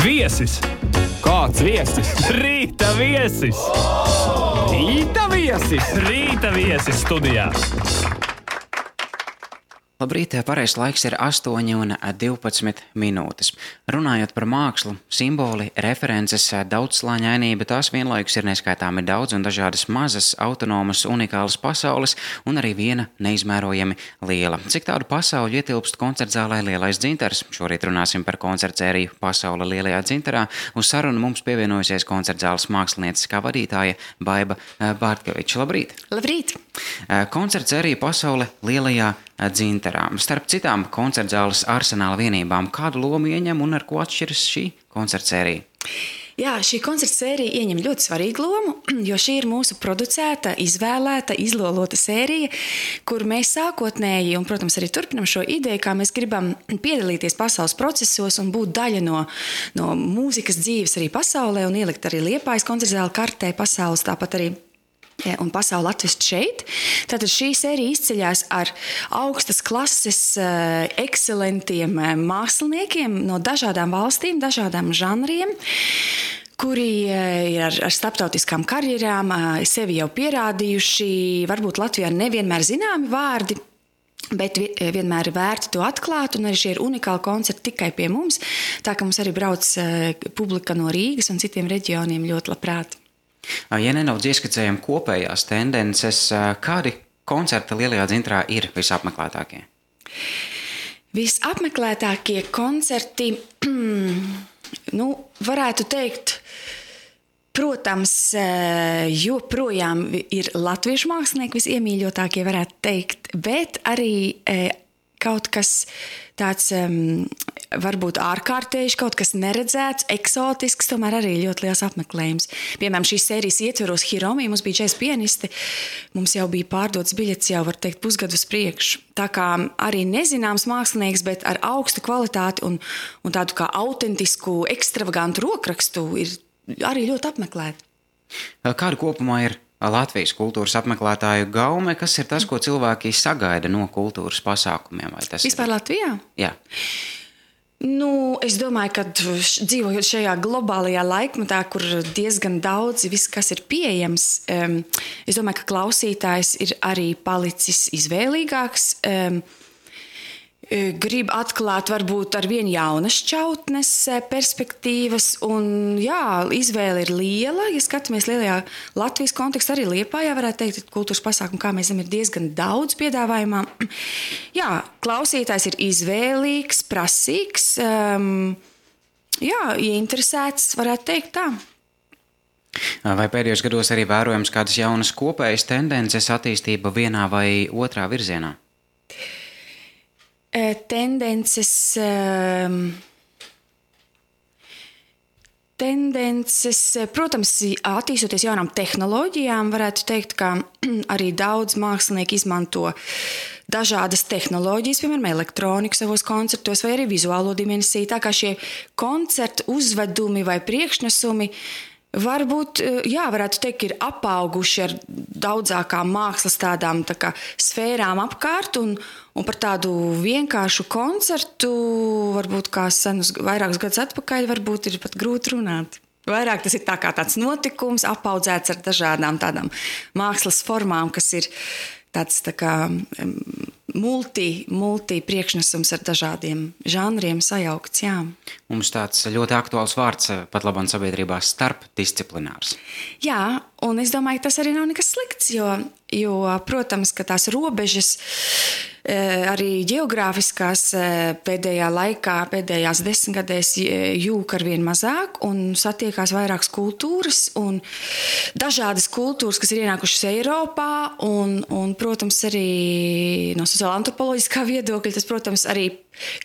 Viesis! Kāds viesis? Rīta viesis! Rīta viesis! Rīta viesis studijā! Labrīt, pareizs laiks ir 8:12 minūtes. Runājot par mākslu, simboli, references, daudzslāņainība, tās vienlaikus ir neskaitāmi daudz un dažādas mazas, autonomas, unikālas pasaules un arī viena neizmērojami liela. Cik tādu pasauļu ietilpst koncertzālē Lielais dzintars? Šorīt runāsim par koncertsēriju Pasaule Lielajā dzintarā. Uz sarunu mums pievienojusies koncertzāles mākslinieces kā vadītāja Baiba Bārtkeviča. Labrīt! Labrīt! Koncertsērija Pasaule Lielajā dzintarā. Starp citām koncertzāles arsenāla vienībām, kādu lomu ieņem un ar ko atšķiras šī koncertsērija? Jā, šī koncertsērija ieņem ļoti svarīgu lomu, jo šī ir mūsu producēta, izvēlēta, izlolota sērija, kur mēs sākotnēji un, protams, arī turpinam šo ideju, kā mēs gribam piedalīties pasaules procesos un būt daļa no mūzikas dzīves arī pasaulē un ielikt arī Liepājas koncertzāle kartē pasaules, tāpat arī un pasauli atvest šeit. Tātad šī sērija izceļās ar augstas klases, ekscelentiem māksliniekiem no dažādām valstīm, dažādām žanriem, kuri ir ar starptautiskām karjerām, sevi jau pierādījuši, varbūt Latvijā nevienmēr zināmi vārdi, bet vienmēr ir vērti to atklāt, un arī šie ir unikāli koncerti tikai pie mums, tā ka mums arī brauc publika no Rīgas un citiem reģioniem ļoti labprāt. Ja nedaudz ieskicējam kopējās tendences, kādi koncerti Lielajā dzintarā ir visapmeklētākie? Visapmeklētākie koncerti, varētu teikt, protams, joprojām ir latviešu mākslinieki visiemīļotākie, varētu teikt, bet arī kaut kas tāds varbūt ārkārtējs, kaut kas neredzēts, eksotisks, tomēr arī ļoti liels apmeklējums. Piemēram, šīs sērijas ietveros Hiromi, mums bija 4 pianisti, mums jau bija pārdots biļets jau, var teikt, pusgadu uz priekšu. Tā kā arī nezināms mākslinieks, bet ar augstu kvalitāti un tādu kā autentisku, ekstravagantu rokrakstu ir arī ļoti apmeklēti. Kāda kopumā ir Latvijas kultūras apmeklētāju gaume, kas ir tas, ko cilvēki sagaida no kultūras pasākumiem? Vai tas vispār Latvijā? Jā. Es domāju, ka dzīvojot šajā globālajā laikmetā, kur diezgan daudz viss, kas ir pieejams, es domāju, ka klausītājs ir arī palicis izvēlīgāks, grib atklāt varbūt ar vien jaunas šķautnes, perspektīvas, un jā, izvēle ir liela. Ja skatāmies lielajā Latvijas kontekstā, arī Liepājā varētu teikt, kultūras pasākumu, kā mēs zinām, ir diezgan daudz piedāvājumā. Jā, klausītājs ir izvēlīgs, prasīgs, ieinteresēts, varētu teikt tā. Vai pēdējos gados arī vērojams kādas jaunas kopējas tendences attīstība vienā vai otrā virzienā? Tendences, protams, attīstoties jaunām tehnoloģijām, varētu teikt, ka arī daudz mākslinieki izmanto dažādas tehnoloģijas, piemēram, elektroniku savos koncertos vai arī vizuālo dimensiju, tā kā šie koncertu uzvedumi vai priekšnesumi varbūt, varētu teikt, ir apauguši ar daudzākām mākslas tādām tā kā sfērām apkārt un par tādu vienkāršu koncertu, varbūt kā senus vairākus gadus atpakaļ, varbūt ir pat grūti runāt. Vairāk tas ir tā kā tāds notikums, apaudzēts ar dažādām tādām mākslas formām, kas ir tāds tā kā multi priekšnesums ar dažādiem žanriem sajaukts, jā. Mums tāds ļoti aktuāls vārds pat labam sabiedrībā starpdisciplinārs. Jā, un es domāju, ka tas arī nav nekas slikts, jo protams, ka tās robežas arī ģeogrāfiskās pēdējā laikā, pēdējās 10 gadēs jūk arvien mazāk un satiekās vairākas kultūras un dažādas kultūras, kas ir ienākušas Eiropā un protams, arī no sociāla antropoloģiskā viedokļa, tas, protams, arī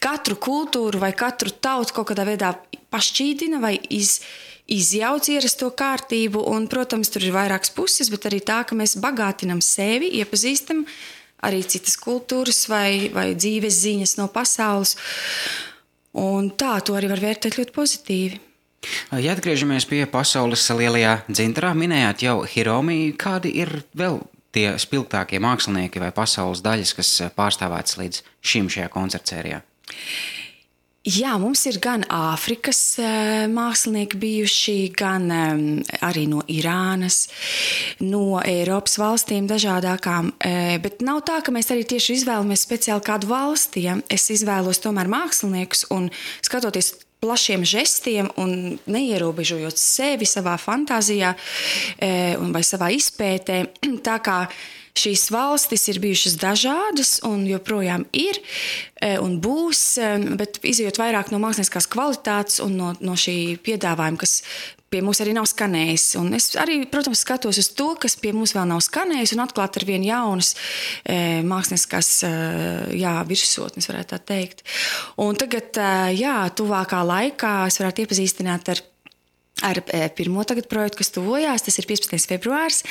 katru kultūru vai katru tautu kaut kādā veidā pašķīdina vai izjauc ierasto kārtību un, protams, tur ir vairākas puses, bet arī tā, ka mēs bagātinam sevi, iepazīstam arī citas kultūras vai dzīves ziņas no pasaules. Un tā, to arī var vērtēt ļoti pozitīvi. Ja atgriežamies pie Pasaules Lielajā dzintarā, minējāt jau Hiromi, kādi ir vēl tie spilgtākie mākslinieki vai pasaules daļas, kas pārstāvētas līdz šim šajā koncertsērijā? Jā, mums ir gan Āfrikas mākslinieki bijuši, gan arī no Irānas, no Eiropas valstīm dažādākām, bet nav tā, ka mēs arī tieši izvēlamies speciāli kādu valsti. Ja? Es izvēlos tomēr māksliniekus un skatoties plašiem žestiem un neierobežojot sevi savā fantāzijā vai savā izpētē, tā kā šīs valstis ir bijušas dažādas un joprojām ir un būs, bet izejot vairāk no mākslinieckās kvalitātes un no šī piedāvājuma, kas pie mums arī nav skanējis. Un es arī, protams, skatos uz to, kas pie mums vēl nav skanējis un atklāt ar vien jaunas mākslinieckās virsotnes, varētu tā teikt. Un tagad, tuvākā laikā es varētu iepazīstināt ar pirmo tagad projektu, kas tuvojās, tas ir 15. februārs,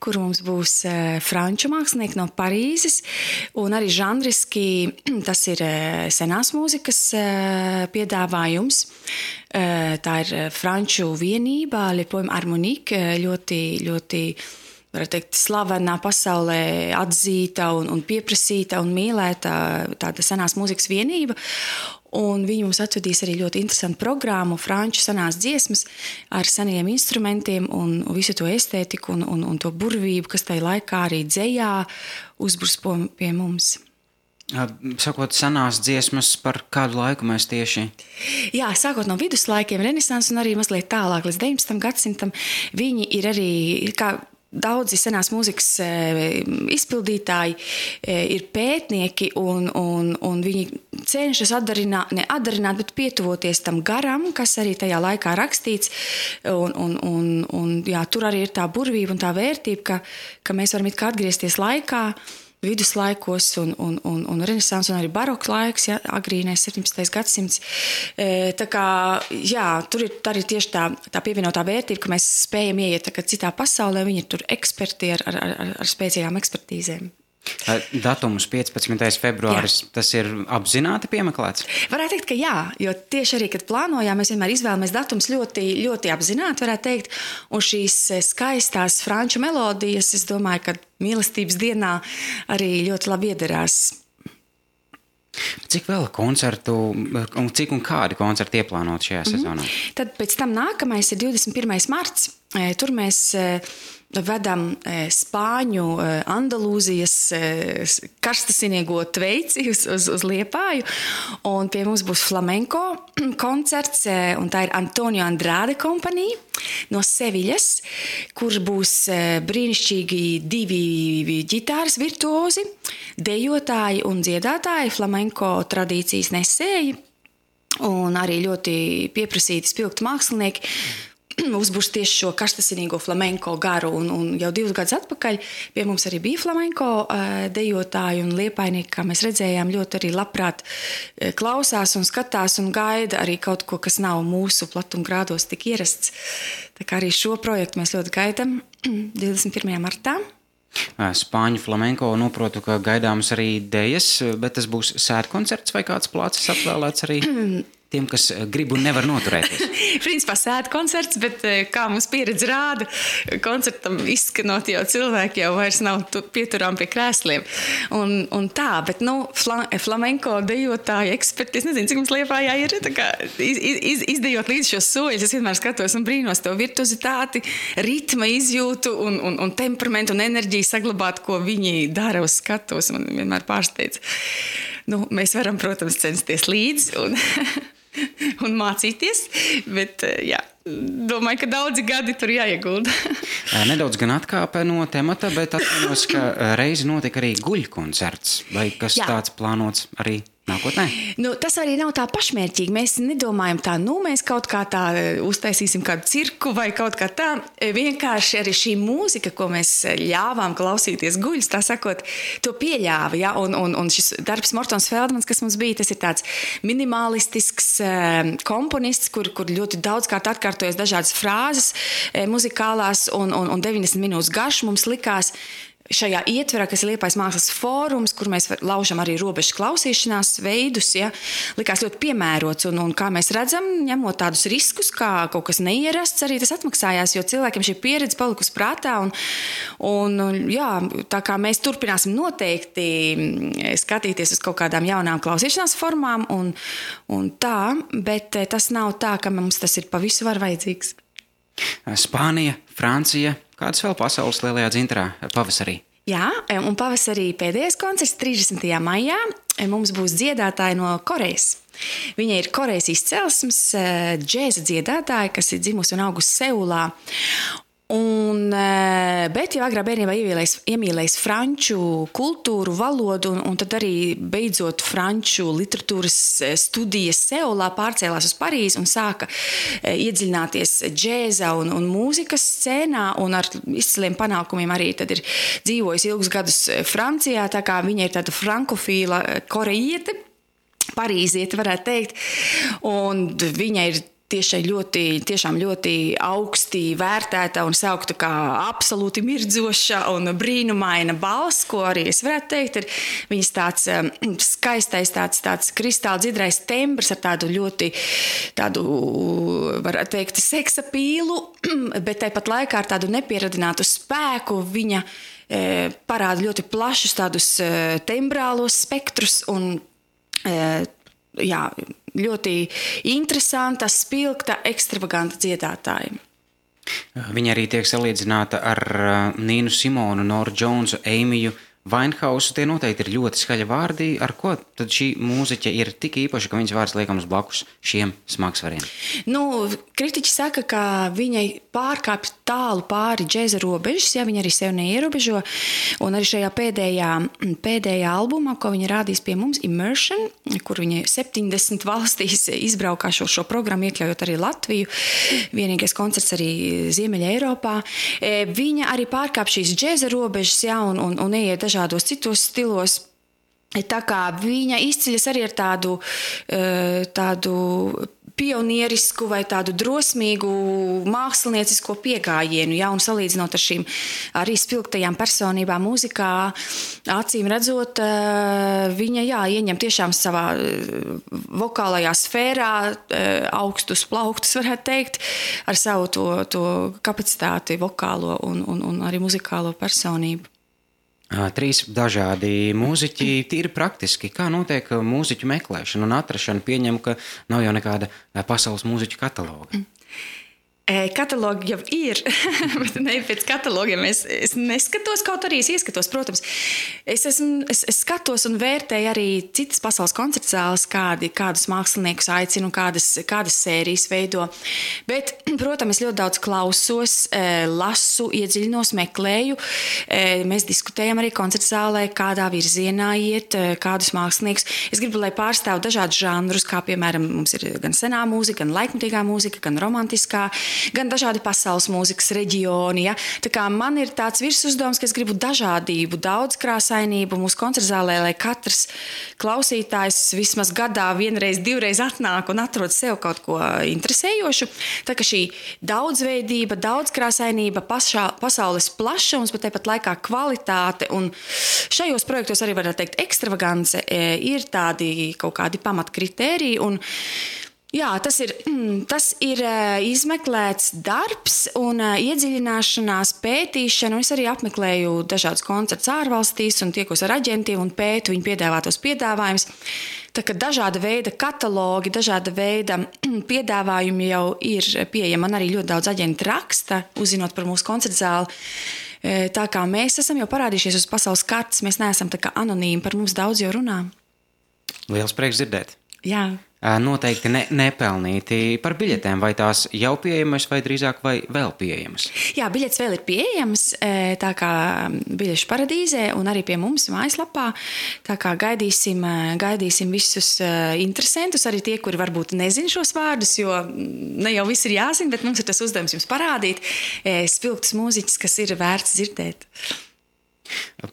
kur mums būs franču mākslinieki no Parīzes, un arī žanriski tas ir senās mūzikas piedāvājums. Tā ir franču vienība, Le Poème Harmonique, ļoti varētu teikt, slavenā pasaulē atzīta un pieprasīta un mīlēta tāda senās mūzikas vienība. Un viņi mums atvedīs arī ļoti interesantu programmu, franču senās dziesmas ar seniem instrumentiem un visu to estētiku un to burvību, kas tajā laikā arī dzejā uzbrusko pie mums. Sakot, senās dziesmas, par kādu laiku mēs tieši? Jā, sākot no viduslaikiem, renesans un arī mazliet tālāk līdz 19. gadsimtam, viņi ir arī, kā daudzi senās mūzikas izpildītāji ir pētnieki un viņi cenšas bet pietuvoties tam garam, kas arī tajā laikā rakstīts. Tur arī ir tā burvība un tā vērtība, ka mēs varam it kā atgriezties laikā, viduslaikos un renesans un arī baroks laiks, agrīnais 17. gadsimts. Tā kā, tur ir arī tieši tā pievienotā vērtība, ka mēs spējam ieiet citā pasaulē, viņi ir tur eksperti ar spēcīgām ekspertīzēm. Datums 15. februāris, tas ir apzināti piemeklēts? Varētu teikt, ka jā, jo tieši arī, kad plānojām, mēs vienmēr izvēlamies datums ļoti, ļoti apzināti, varētu teikt, un šīs skaistās franču melodijas, es domāju, ka mīlestības dienā arī ļoti labi iederās. Cik vēl koncertu, cik un kādi koncerti ieplānot šajā sezonā? Tad pēc tam nākamais ir 21. marts, tur mēs vedam Spāņu Andalūzijas karstasinīgo tveici uz Liepāju, un pie mums būs flamenko koncerts, un tā ir Antonio Andrade kompanija no Seviļas, kur būs brīnišķīgi divi ģitāras virtuozi, dejotāji un dziedātāji, flamenko tradīcijas nesēji, un arī ļoti pieprasīti spilgti mākslinieki, uzbūrs tieši šo karstasinīgo flamenko garu, un jau 2 gadus atpakaļ pie mums arī bija flamenko dejotāji un liepainieki, kā mēs redzējām, ļoti arī labprāt klausās un skatās un gaida arī kaut ko, kas nav mūsu platumgrādos tik ierasts. Tā kā arī šo projektu mēs ļoti gaidam 21. martā. Spāņu flamenko noprotu, ka gaidāmas arī dejas, bet tas būs sēdkoncerts vai kāds plācis atvēlēts arī tiem, kas grib un nevar noturēties? Principā sēdkoncerts, bet kā mums pieredze rāda, koncertam izskanot jau cilvēki jau vairs nav pieturām pie krēsliem. Un tā, bet flamenko dejotāji eksperti, es nezinu, cik mums Liepājā ir, tā kā izdejot līdz šos soļus, es vienmēr skatos un brīnos to virtuozitāti, ritma izjūtu un temperamentu un enerģiju saglabāt, ko viņi dara uz skatos, man vienmēr pārsteidz. Mēs varam, protams, censties līdzi un mācīties, bet domāju, ka daudzi gadi tur jāiegulda. Nedaudz gan atkāpe no temata, bet atceros, ka reizi notika arī guļkoncerts, vai kas tāds plānots arī nākotnē? Tas arī nav tā pašmērķīgi. Mēs nedomājam tā, mēs kaut kā tā uztaisīsim kādu cirku vai kaut kā tā. Vienkārši arī šī mūzika, ko mēs ļāvām klausīties guļus, tā sakot, to pieļāva. Ja? Un šis darbs Mortons Feldmans, kas mums bija, tas ir tāds minimalistisks komponists, kur ļoti daudzkārt atkārtojas dažādas frāzes muzikālās un 90 minūtes garš mums likās šajā ietverā, kas ir Liepājas mākslas fórums, kur mēs laužam arī robežu klausīšanās veidus, ja, likās ļoti piemērots. Un kā mēs redzam, ņemot tādus riskus, kā kaut kas neierasts, arī tas atmaksājās, jo cilvēkiem šī pieredze palikusi prātā. Jā, tā kā mēs turpināsim noteikti skatīties uz kaut kādām jaunām klausīšanās formām un tā, bet tas nav tā, ka mums tas ir pa visu var vajadzīgs. Spānija, Francija, kādas vēl pasaules lielajā dzintarā pavasarī? Jā, un pavasarī pēdējais koncerts 30. maijā mums būs dziedātāji no Korejas. Viņa ir Korejas izcelsmes džēza dziedātāja, kas ir dzimusi un augusi Seulā. Bet jau agrā bērnībā iemīlējis franču kultūru, valodu, un tad arī beidzot franču literatūras studijas Seulā pārcēlās uz Parīzi un sāka iedziļināties džēza un mūzikas scēnā, un ar izciliem panākumiem arī tad ir dzīvojis ilgus gadus Francijā, tā kā viņa ir tāda frankofīla korejiete, parīziete varētu teikt, un viņa ir tiešām ļoti augsti vērtēta un saukta kā absolūti mirdzoša un brīnumaina balss, ko arī es varētu teikt, ir viņas tāds skaistais, tāds kristāli dzidrais tembrs ar tādu ļoti, varētu teikt, seksa pīlu, bet tāpat laikā ar tādu nepieradinātu spēku viņa parāda ļoti plašus tādus tembrālos spektrus un jā, ļoti interesanta, spilgta, ekstravaganta dziedātāja. Viņa arī tiek salīdzināta ar Nīnu Simonu, Noru Džonsu, Eimiju Vainhausu. Tie noteikti ir ļoti skaļi vārdi. Ar ko tad šī mūziķe ir tik īpaša, ka viņas vārds liekams blakus šiem smagsvariem? Kritiķi saka, ka viņai pārkāpj tālu pāri džēza robežas, ja viņa arī sev neierobežo. Un arī šajā pēdējā albumā, ko viņa rādīs pie mums, Immersion, kur viņa 70 valstīs izbraukā šo programmu, iekļaujot arī Latviju, vienīgais koncerts arī Ziemeļa Eiropā, viņa arī pārkāpj šīs džēza robežas, ja, un ieiet dažādos citos stilos. Tā kā viņa izceļas arī ar tādu pionierisku vai tādu drosmīgu māksliniecisko piegājienu, ja, un salīdzinot ar šīm arī spilgtajām personībām mūzikā, acīm redzot, viņa, jā, ieņem tiešām savā vokālajā sfērā augstus plauktus, varētu teikt, ar savu to kapacitāti vokālo un arī muzikālo personību. 3 dažādi mūziķi, tīri praktiski. Kā notiek mūziķu meklēšana un atrašana? Pieņem, ka nav jau nekāda pasaules mūziķu kataloga. Katalogi jau ir, bet ne pēc katalogiem. Es neskatos, kaut arī es ieskatos, protams. Es skatos un vērtēju arī citas pasaules koncertzāles, kādus māksliniekus aicinu, kādas sērijas veido. Bet, protams, es ļoti daudz klausos, lasu, iedziļinos, meklēju. Mēs diskutējam arī koncertzālē, kādā virzienā iet, kādus māksliniekus. Es gribu, lai pārstāv dažādus žanrus, kā piemēram mums ir gan senā mūzika, gan laikmatīgā mūzika, gan romantiskā, gan dažādi pasaules mūzikas reģioni. Ja? Tā kā man ir tāds virsuzdevums, ka es gribu dažādību, daudzkrāsainību mūsu koncertzālē, lai katrs klausītājs vismaz gadā vienreiz, divreiz atnāk un atrod sev kaut ko interesējošu. Tā kā šī daudzveidība, daudzkrāsainība, pasaules plašums, bet tāpat laikā kvalitāte un šajos projektos arī varētu teikt ekstravagance ir tādi kaut kādi pamatkritēriji un jā, tas ir izmeklēts darbs un iedziļināšanās, pētīšana. Es arī apmeklēju dažādus koncertus ārvalstīs un tiekos ar aģentiem un pētu viņu piedāvātos piedāvājumus. Tā kā dažāda veida katalogi, dažāda veida piedāvājumi jau ir pieejami. Man arī ļoti daudz aģenti raksta, uzzinot par mūsu koncertzāli. Tā kā mēs esam jau parādījušies uz pasaules kartes, mēs neesam tā kā anonīmi, par mums daudz jau runā. Liels prieks dzirdēt. Jā. Noteikti nepelnīti par biļetēm, vai tās jau pieejamas vai drīzāk vai vēl pieejamas? Jā, biļetes vēl ir pieejamas, tā kā biļešu paradīzē un arī pie mums mājaslapā, tā kā gaidīsim visus interesantus, arī tie, kuri varbūt nezin šos vārdus, jo ne jau viss ir jāzina, bet mums ir tas uzdevums jums parādīt spilgtus mūziķus, kas ir vērts dzirdēt.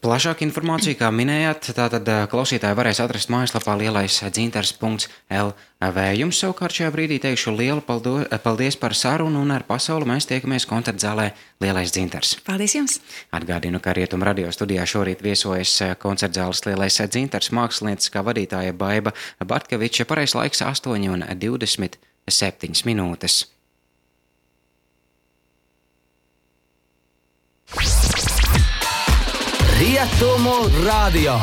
Plašāku informāciju, kā minējāt, tātad klausītāji varēs atrast mājaslapā lielaisdzintars.lv. Jums savukārt šajā brīdī teikšu lielu paldies par sarunu un ar pasauli mēs tiekamies koncertzālē Lielais dzintars. Paldies jums! Atgādinu, ka Rietum radio studijā šorīt viesojas koncertzāles Lielais dzintars mākslinieckā vadītāja Baiba Bartkeviča. Pareizais laiks 8:27 minūtes. Rietumu radio.